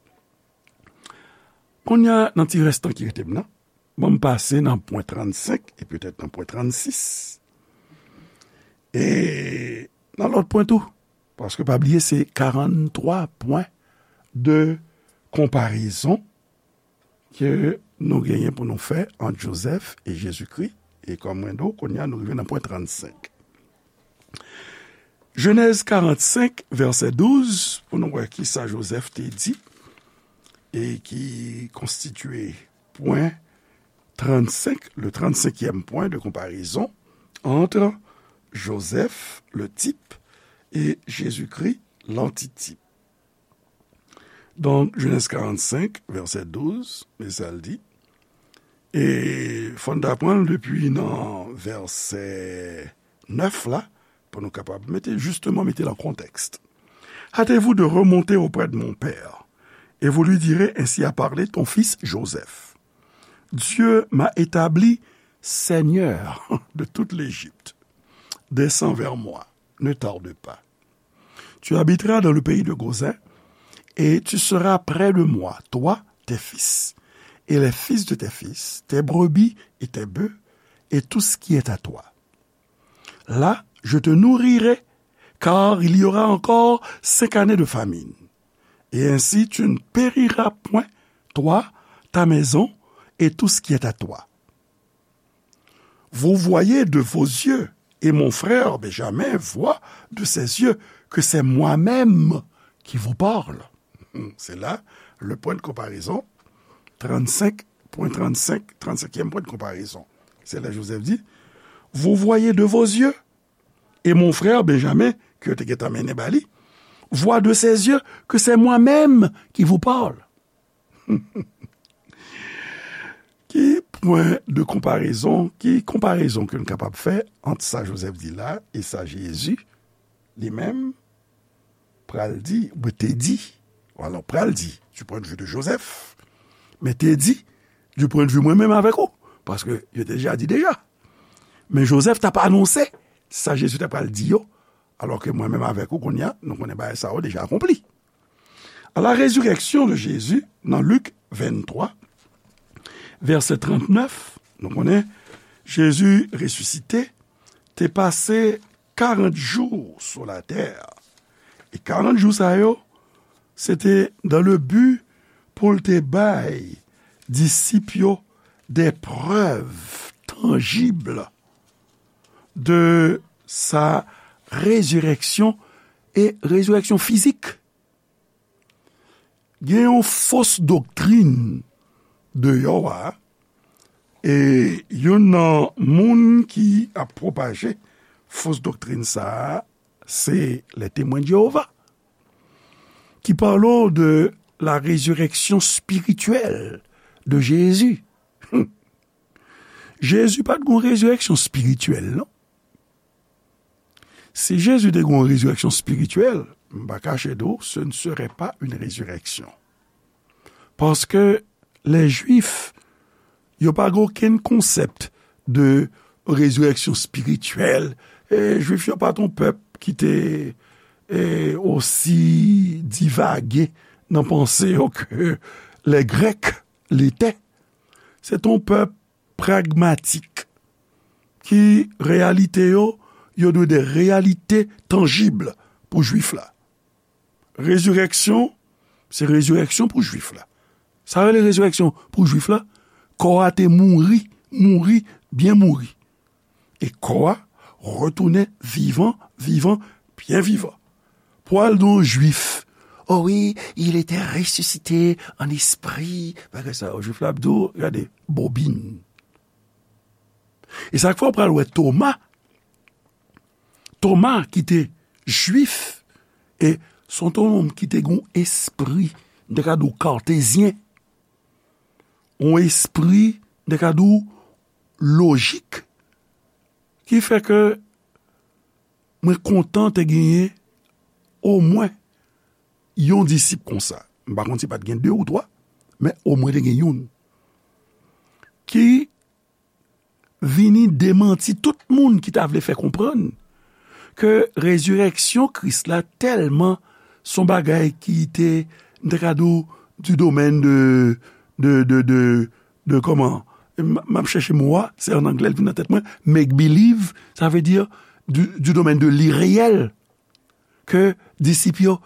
Kounye a, nan ti rès tan ki rete m nan, ban m pase nan pwen trannsenk e petèt nan pwen trannsis. E nan lòt pwen tou, paske pa bliye se karanntwa pwen de konparezon ke nou genyen pou nou fè ant Jozèf e Jezikri. E kòm mwen di w, kounye a nou rive nan pwen trannsenk. Jenèz karannsenk, vèsè douz, pou nou wè kisa Jozèf te di, e ki konstitye pwen trannsenk, le trannsenkyèm pwen de konparezon entre Joseph, le type, et Jésus-Christ, l'antitype. Donk, Jenèz karannsenk, vèsè douz, men sa l di. E fò n ta pran l depi nan vèsè nèf la, pou nou kapab mete, jisteman, mete l an kontèks. Hâtez-vous de remonter auprès de mon père, et vous lui direz, ainsi a parlé ton fils Joseph. Dieu m'a établi seigneur de toute l'Égypte. Descends vers moi, ne tarde pas. Tu habiteras dans le pays de Gozin, et tu seras près de moi, toi, tes fils, et les fils de tes fils, tes brebis et tes bœufs, et tout ce qui est à toi. Là, je te nourrirai, car il y aura encore cinq années de famine. Et ainsi tu ne périras point, toi, ta maison, et tout ce qui est à toi. Vous voyez de vos yeux, et mon frère Benjamin voit de ses yeux que c'est moi-même qui vous parle. C'est là le point de comparaison, trannsenk pwen trannsenk, trannsenkyèm pwen de konparezon. Se la Jozèf di, vous voyez de vos yeux, et mon frère Benjamin, ke yo te gentan mennen ba li, voit de ses yeux que c'est moi-même qui vous parle. Ki pwen de konparezon, ki konparezon ke n kapab fè ant sa Jozèf di la e sa Jezi li menm pral di, ou te di, alò pral di, du point de vue de Joseph, men te di, du point de vue mwen menm avèk ou, paske yo te deja di deja. Men Jozèf t ap anonse sa Jezi t ap pral di yo, alò ke mwen menm avèk ou kounye a, nou konnen bagay sa yo deja akonpli. À la résurrection de Jésus, nan Lik venntwa, vèsè trannèf, nou konnen Jezi resisite, te pase karant jou sou latè. E karant jou sa yo, se te dans le but pou l te bay disip yo des preuves tangibles de sa résurrection, e résurrection fizik. Gen yon fos doktrin deyò a, e youn nan moun ki ap pwopaje fos doktrin sa a, se les Témoins de Jéhovah, ki pale de la résurrection spirituelle de Jésus. Jezi pa t gen yon rezireksyon espirityèl, non. Si Jezi te gen yon rezireksyon espirityèl, m pa kache di w, ce ne serait pas une résurrection. Paske lè Jwif yo pa gen okenn konsèp de rezireksyon espirityèl. E Jwif yo pa t yon pèp ki te e, osi divage nan panse yo ke les Grecs l'étaient. Se t yon pèp pragmatik ki reyalite yo, yo dwe de reyalite tanjib pou Jwif la. Rezireksyon, se rezireksyon pou Jwif la. Sa rele rezireksyon pou Jwif la, kò a te mouri, mouri, byen mouri. E kò a retounen vivan, vivan, byen vivan. Pou al di yon Jwif, oh oui, il était ressuscité en esprit. Bagay sa yo, Jwif la ap di w, gade, bobin. E sa k fè w pral wè Toma, Toma ki te Jwif, e se te yon nonm ki te gen yon espri, m te ka di w katezyen, yon espri, m te ka di w lojik, ki fè ke mwen kontan te genyen omwen yon disip konsa. M pa konn si pa t gen de ou twa, men omwen te gen youn. Ki vini demanti tout moun ki ta vle fè konprann ke rezireksyon Kris la tèlman se yon bagay ki te, m te ka di w, du domaine de, de, de, de, de kòman? M, m ap chèche mo a, se an anglè l vin nan tèt mwen, make believe, sa vle di du, du domaine de l'irréel, ke disip yo,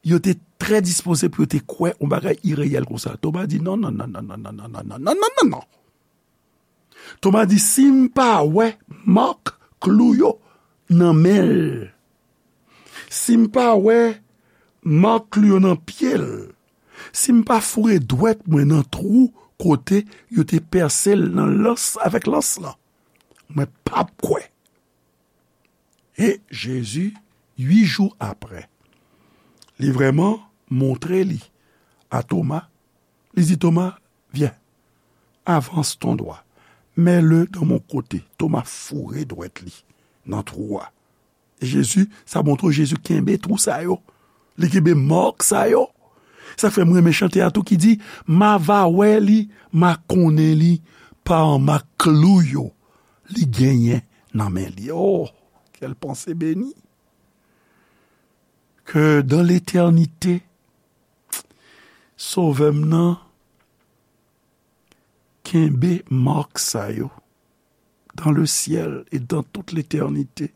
yo te trè dispoze pou yo te kwè yon bagay ireyèl konsa. Toma di, non, non, non, non, non, non, non, non, non, non, non, non, non. Toma di, si m pa wè mak klou yo nan men l, si m pa wè mak klou yo nan pye l, si m pa foure dwèt mwen nan twou kote yo te pèse l nan lans avèk lans lan, mwen p ap kwè. E Jezi, uit jou apre, li vrèman montre li a Toma. Li di Toma, viens, avance ton doigt, mets-le dans mon côté. Toma foure dwèt li nan twou a. E Jezi, sa montre w Jezi kenbe twou sa yo. Li kenbe mak sa yo. Sa fè m renmen chante a tou ki di, m a va wè li, m a konnen li, pa an mak klou yo li genyen nan men li. Oh, quelle pensée bénie! Que dans l'éternité, Sovè m nan kenbe mak sa yo dans le ciel et dans toute l'éternité.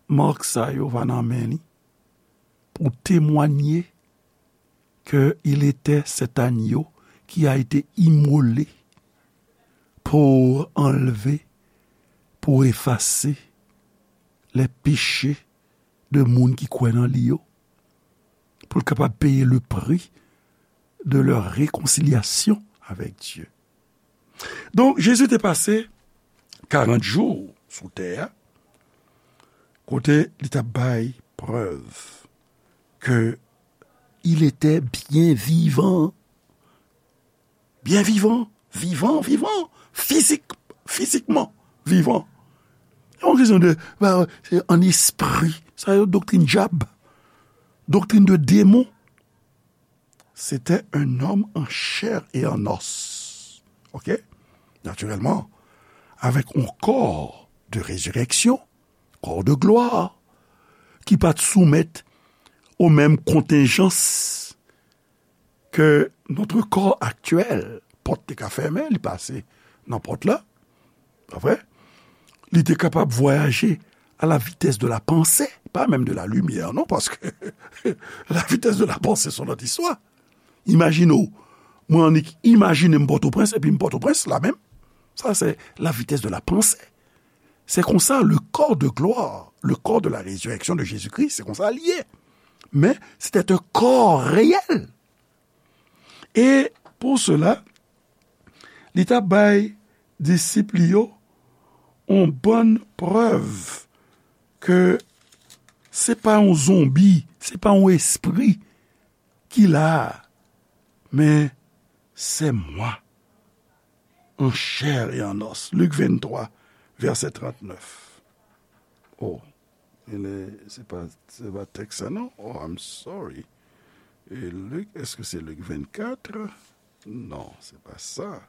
Mak sa yo va nan men li pou temwanye que il était cet agneau qui a été immolé pour enlever, pour effacer les péchés de moun ki kwè nan li yo, pou l kapab peye le prix de leur réconciliation avec Dieu. Donk, Jezi te pase karant jou sou tè a, kote li t ap bay prèv ke il était bien vivant. Byen vivan, vivan, vivan, fizik, fizikman vivan. Se yon kesyon de, ba, se an espri. Sa yo doktrin dyab, doktrin de demon. C'était un homme en chair et en os. OK? Naturellement, avec un corps de résurrection, corps de gloire, ki pa t soumèt aux mêmes contingences que notre corps actuel. Pòt te ka fèmen, li pase nan pòt la. Pa vre? Li te kapab vwayaje à la vitesse de la pensée, pas même de la lumière, non, paske la vitesse de la pensée, se yon lòt istwa. Imajine w, mwen annik imajine m Pòtoprens, epi m Pòtoprens la menm. Sa, se la vitesse de la pensée. Se konsa, le corps de gloire, le corps de la résurrection de Jésus-Christ, se konsa li ye. Men, c'était un corps réel. E pou sela, li t ap bay disip li yo yon bann prèv ke se pa yon zonbi, se pa yon espri ki la a, men c'est moi, en chair et en os. Lik venntwa, vèsè trannèf. Oh, e le, se pa, se pa tèks sa non. Oh, I'm sorry. E Lik, èske se Lik vennkat? Non, se pa sa.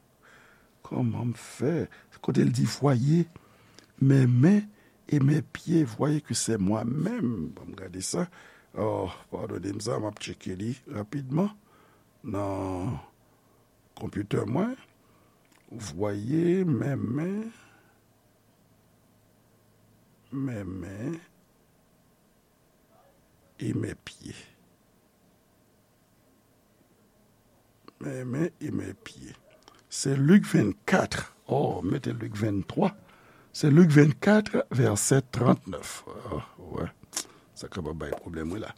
Kòman m fè? Kote l di, voyez mes mains et mes pieds, voyez que c'est moi-même. Ban m gade sa. Oh, padone m sa, m ap tcheke li rapidman nan konpitè mwen. Voyez mes mains, mes mains et mes pieds. Mes mains et mes pieds. Se Lik vennkat. Oh, mete Lik venntwa. Se Lik vennkat, vèsè trannèf. Oh, wè. Sa kapab bay pwoblèm, wi, la.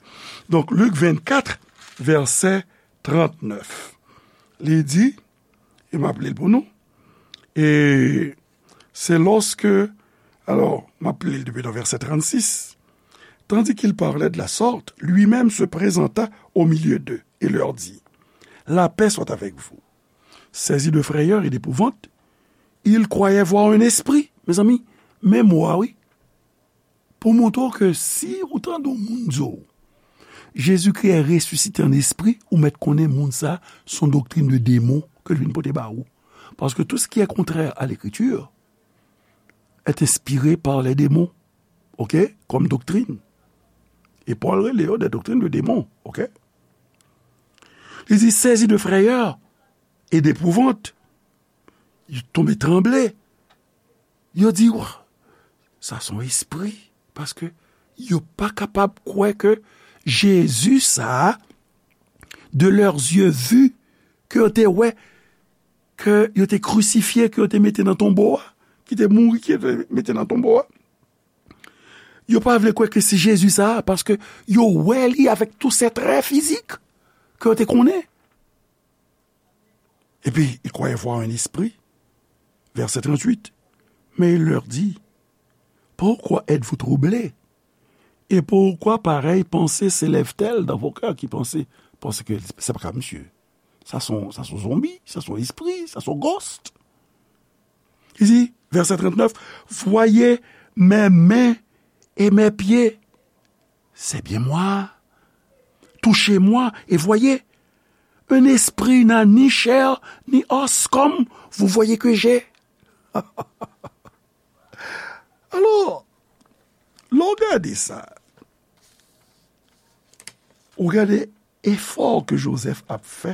Donk, Lik vennkat, vèsè trannèf. Li di, e m ap li l pou nou, e c'est lorsque, alors, m ap li l depi nan vèsè trannsis. Tandis qu'il parlait de la sorte, lui-même se présenta au milieu d'eux et leur dit, la paix soit avec vous. Saisis de frayeur et d'épouvante, ils croyaient voir un esprit. Mezanmi, men mo a, wi. Pou montre w ke si ou tande yon moun di w, Jésus-Christ est ressuscité en esprit, ou mèt konnen moun sa, se yon doktrin de demon ke l vin pote ba ou. Parce que tout ce qui est contraire à l'Écriture est inspiré par les démons, OK, comme doctrine. E Pòl rele yo des doctrines de démons, OK? Li di, saisis de frayeur et d'épouvante. Yo tonbe tranble. Yo di, wa, sa se yon espri. Paske yo pa kapab kwè ke Jezi sa a, de leurs yeux vus, ke yo te wè, ke yo te krisifye, ke yo te mete nan tonbo a, ki te mouri, ki yo te mete nan tonbo a. Yo pa vle kwè ke se Jezi sa a, paske yo wè li avèk tout ses traits physiques ke yo te konnen. Et puis, ils croyaient voir un esprit. Verset trente-huit. Mais il leur dit, pourquoi êtes-vous troublés? Et pourquoi pareille pensée s'élève-t-elle dans vos cœurs? Ki panse? Paske se pa ka misye. Sa se yon, sa se yon zonbi, sa se yon espri, sa se yon ghost. Il dit, verset trente-neuf, voyez mes mains et mes pieds. C'est bien moi. Touchez-moi et voyez. Un esprit n'a ni chair ni os comme vous voyez que j'ai. Alò, lè w gade sa, ou gade efò ke Jozèf ap fè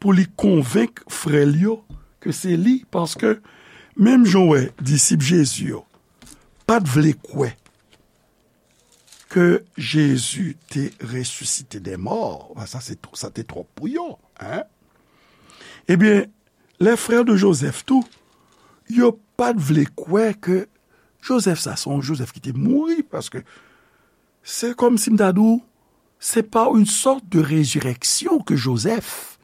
pou li konvenk frè l yo ke se li, paske menm jan w wè disip Jezi yo pa t vle kwè ke Jezi te resisite dè mò, sa se, sa te twòp pou yo, en. Ebyen, les frères de Joseph tou, yo pa t vle kwè ke Jozèf sa, se yon Jozèf ki te mouri, paske se kòmsi m ta di w, c'est pas une sorte de résurrection que Joseph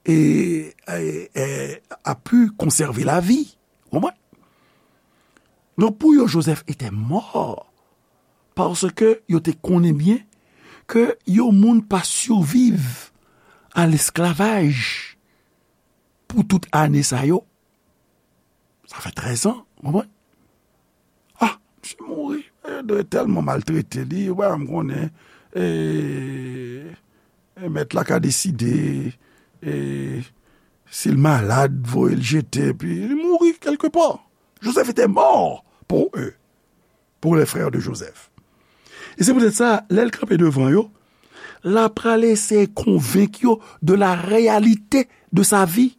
et, et, et a pu conserver la vie. Ou konprann? Donk, pou yo, Joseph était mort, paske yo te konnen byen ke yon moun pa siviv a lesklavaj. pou tout ane sa yo. Sa fè trèz an, w konprann? Ah, misye mouri. E, yo tèlman maltrete li, ou pa janm konnen, e, e, mèt la ka deside, e, si l malad, voye l jete, epi li mouri kèlkepa. Joseph était mort pour eux, pour les frères de Joseph. E se poutèt sa, lè l kanpe devan yo, l ap pral eseye konvenk yo de la réalité de sa vie.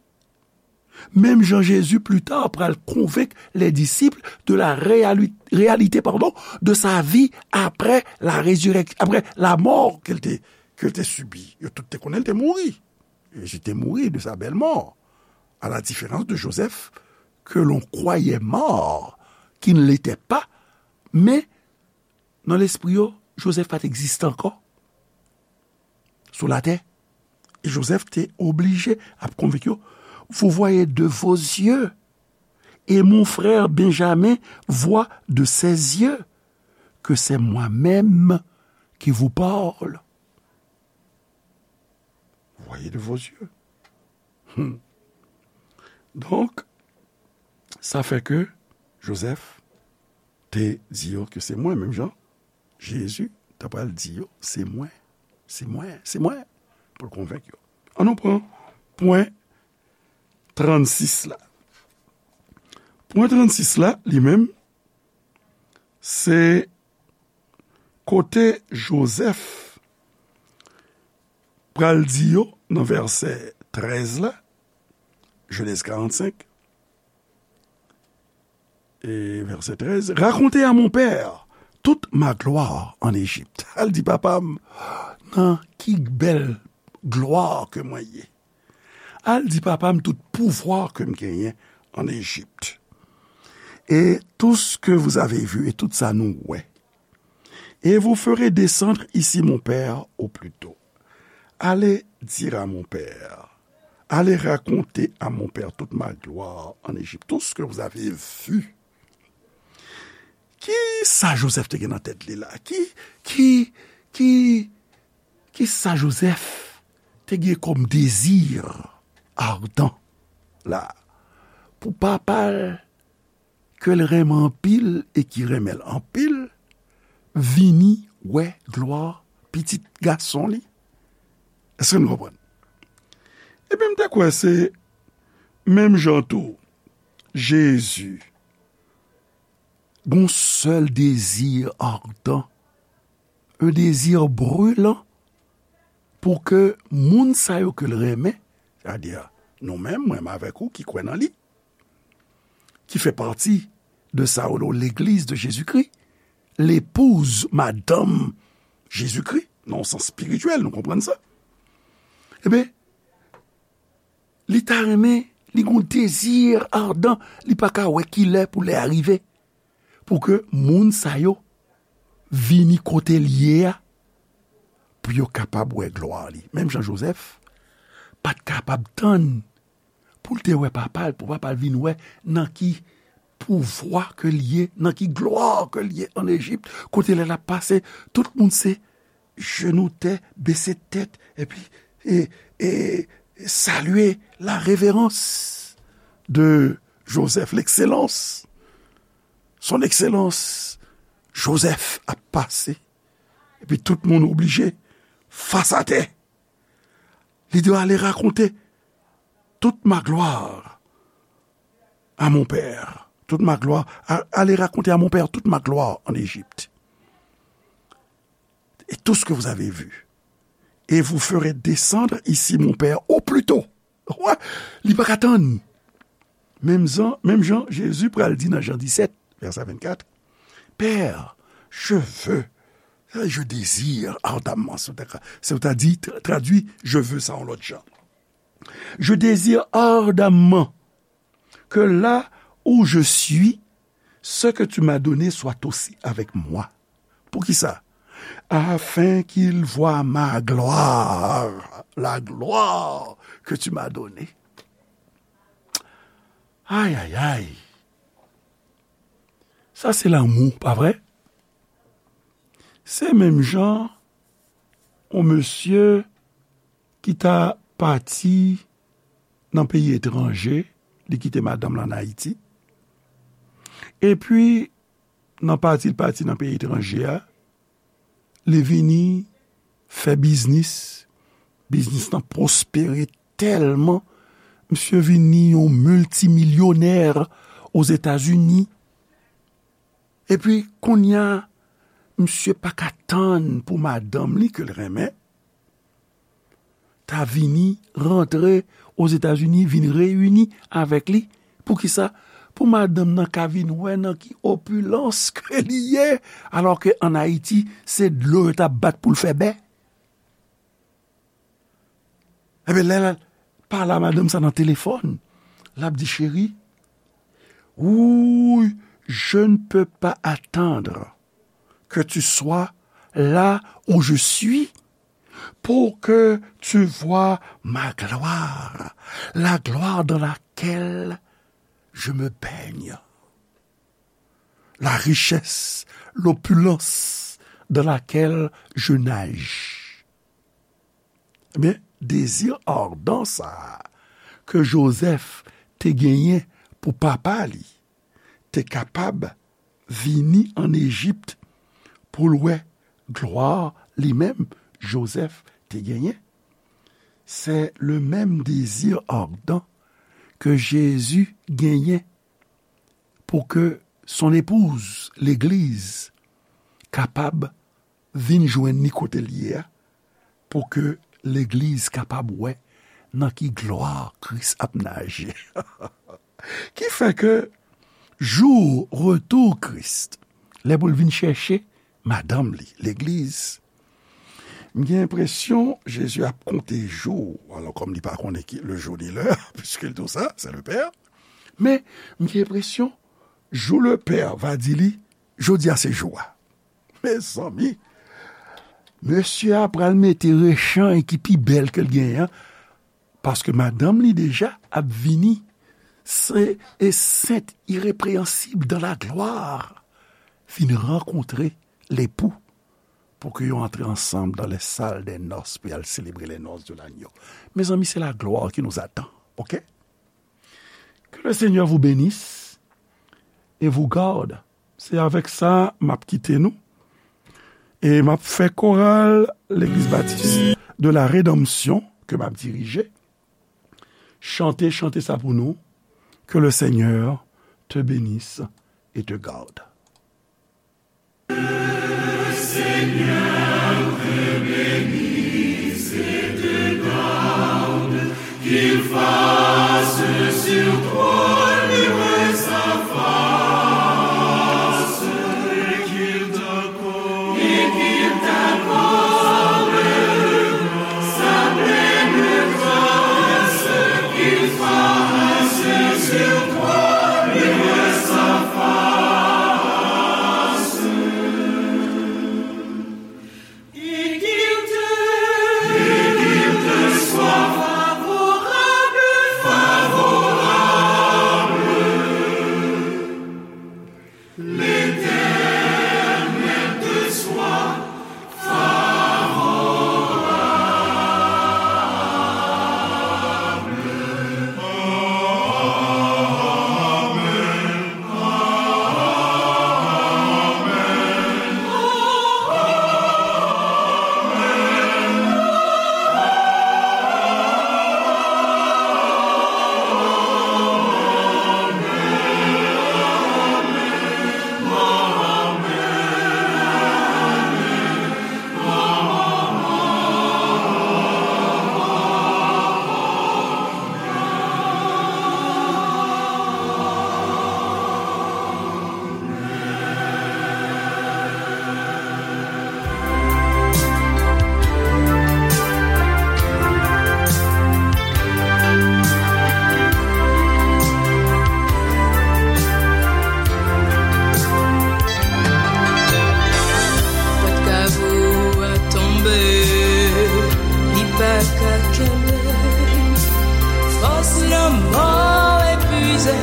Menm jan Jezi pli ta pral konvenk les disciples de la réali-, réalité, pardon, de sa vie après la résurrec-, après la mort ke l te, ke l te sibi. Yo tout te konnen l te mouri. Jezi te mouri de sa belle mort, à la différence de Joseph, que l'on croyait mort, qui ne l'était pas, men nan lespri yo, Joseph pa t egziste ankò sou latè. E Joseph te oblije ap konvenk yo, vous voyez de vos yeux, et mon frère Benjamin voit de ses yeux que c'est moi-même qui vous parle. Vous voyez de vos yeux. Hmm. Donk, sa fè ke Joseph te di yo ke se mwen, menm jan Jezi ta pral di yo, se mwen, se mwen, se mwen, pou l konvenk yo. An nou pran pwen trannsis la. Pwen trannsis la, li menm, se kote Joseph pral di yo nan vèsè trèz la, Genèse quarante-cinq, e vèsè trèz, racontez à mon père toute ma gloire en Égypte. Al di papa m nan ki bèl glwa ke mwen ye. Al di papa m tout pouvwa ke m genyen an Ejip. Et tout ce que vous avez vu, e tout sa nou wè. Et vous ferez descendre ici mon père au plus tôt. Allez dire à mon père, allez raconter à mon père toute ma gloire en Égypte, tout ce que vous avez vu. Ki sa Joseph te gen nan tèt li la? Ki, ki, ki, ki sa Joseph te gen kòm dezi adan la? Pou papa l ke l renmen anpil e ki renmen l anpil, vini wè glwa pitit gason li. Èske nou konprann? Ebyen, m te kwè se menm jan tou, Jezi gon sèl dezi adan, un désir brûlant, pou ke moun sa yo ke l renmen, sètadi nou menm, mwen menm avèk ou ki kwè nan li, ki fè pati de sa yo rele Legliz de Jezikri, lepouz, madanm Jezikri, nan yon sans espirityèl, nou konprann sa? Ebyen, li ta renmen, li gon dezi adan, li pa ka wè ki lè pou lè a rive, pou ke moun sa yo vini kote l ye a, pou yo kapab wè glwa li. Menm jan Joseph pa t kapab tann pou l te wè papa l, pou papa l vin wè nan ki pouvwa ke l ye, nan ki glwa ke l ye an Ejip, kote lè l ap pase, tout moun se jenou tè, bese tèt, epi, e, e, salye la révérence de Joseph, l'excellence, son excellence, Joseph ap pase. Epi tout moun oblije fas atè. Li di yo, allez raconter toute ma gloire à mon père. Toute ma gloire, a-, allez raconter à mon père toute ma gloire en Égypte. Et tout ce que vous avez vu. Et vous ferez descendre ici mon père au plus tôt. Wè, li pa ka tann. Menm jan, menm jan Jezi pral di nan Jan disèt, vèsè vennkat, Père, je veux, je désire ardemment, se w ta ka, se w ta di, tra-, tradui, je veux sa yon lòt jan. Je désire ardemment que là où je suis, ce que tu m'as donné soit aussi avec moi. Poukisa? Afin qu'il voie ma gloire, la gloire que tu m'as donnée. Ay, ay, ay. Sa se lanmou, pa vre? Se menm jan yon mesye ki ta pati nan peyi etranje, li kite madanm lan ann Ayiti. Epi, nan pati l pati nan peyi etranje a, li vini fè biznis. Biznis lan pwospere tèlman, misye vini yon miltimilyonè Ozetazini. Epi, kounye a, misye pa ka tann pou madanm li ke l renmen ta vini rantre Ozetazini, vin reyini avèk li. Poukisa? Pou madanm nan ka vin wè nan ki opilans ke li ye, alò ke ann Ayiti, se dlo yo t ap bat pou l fè bè. Ebyen, lè l pale a madanm sa nan telefòn, l ap di, Cheri, oui, je ne peux pas attendre que tu sois là où je suis pour que tu vois ma gloire, la gloire dans laquelle je me baigne, la richesse, l'opulence dans laquelle je nage. Ebyen, dezi adan sa a ke Jozèf te genyen pou papa li te kapab vini ann Ejip pou l wè glwa li menm Jozèf te genyen. C'est le même désir ardent que Jésus genyen pou ke son épouse, legliz, kapab vin jwenn li kote l ye a, pou ke legliz kapab wè nan ki glwa Kris ap naje. Ki fè ke jou retou Kris, lè pou l vin chèche madanm li, legliz, m gen enpresyon Jezi ap konte jou, alò kòm li pa konnen ki le jou ni lè, piske l di w sa, c'est le Père. Men, m gen enpresyon, jou le Père va di li, jodi a se jou a. Mezanmi, mesye a pral mete rechanj ki pi bèl ke l genyen an, paske madanm li deja ap vini, se, e sent, irepreyansib dans la gloire, vin rankontre lepou, pou ke yo antre ansanm dans les salles des noces pou y al selebre les noces de l'agneau. Mezanmi, c'est la gloire qui nous attend, ok? Que le Seigneur vous bénisse et vous garde. Se avèk sa m ap kite nou. E m ap fè koral Legliz Batis de la Redanmsyon ke m ap dirije chante chante sa pou nou. Que le Seigneur te bénisse et te garde. Seigneur te bénisse et te garde, qu'il fasse sur toi luire sa face, et qu'il t'accorde, et qu'il t'accorde sa pleine grâce, qu'il fasse sur toi luire sa face. Et qu'il te, et qu'il te soit favorable, favorable. L'Éternel te soit favorable. Pòt kavo a tonbe, li pa ka kenbe. Fòs lanmò epuize,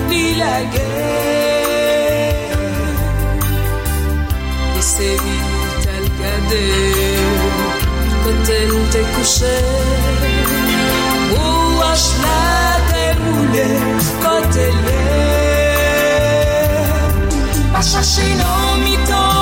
li lage. Lese li t al gade kote l te kouche. Pou wòch la Kote l ye? Pa chache nan mitan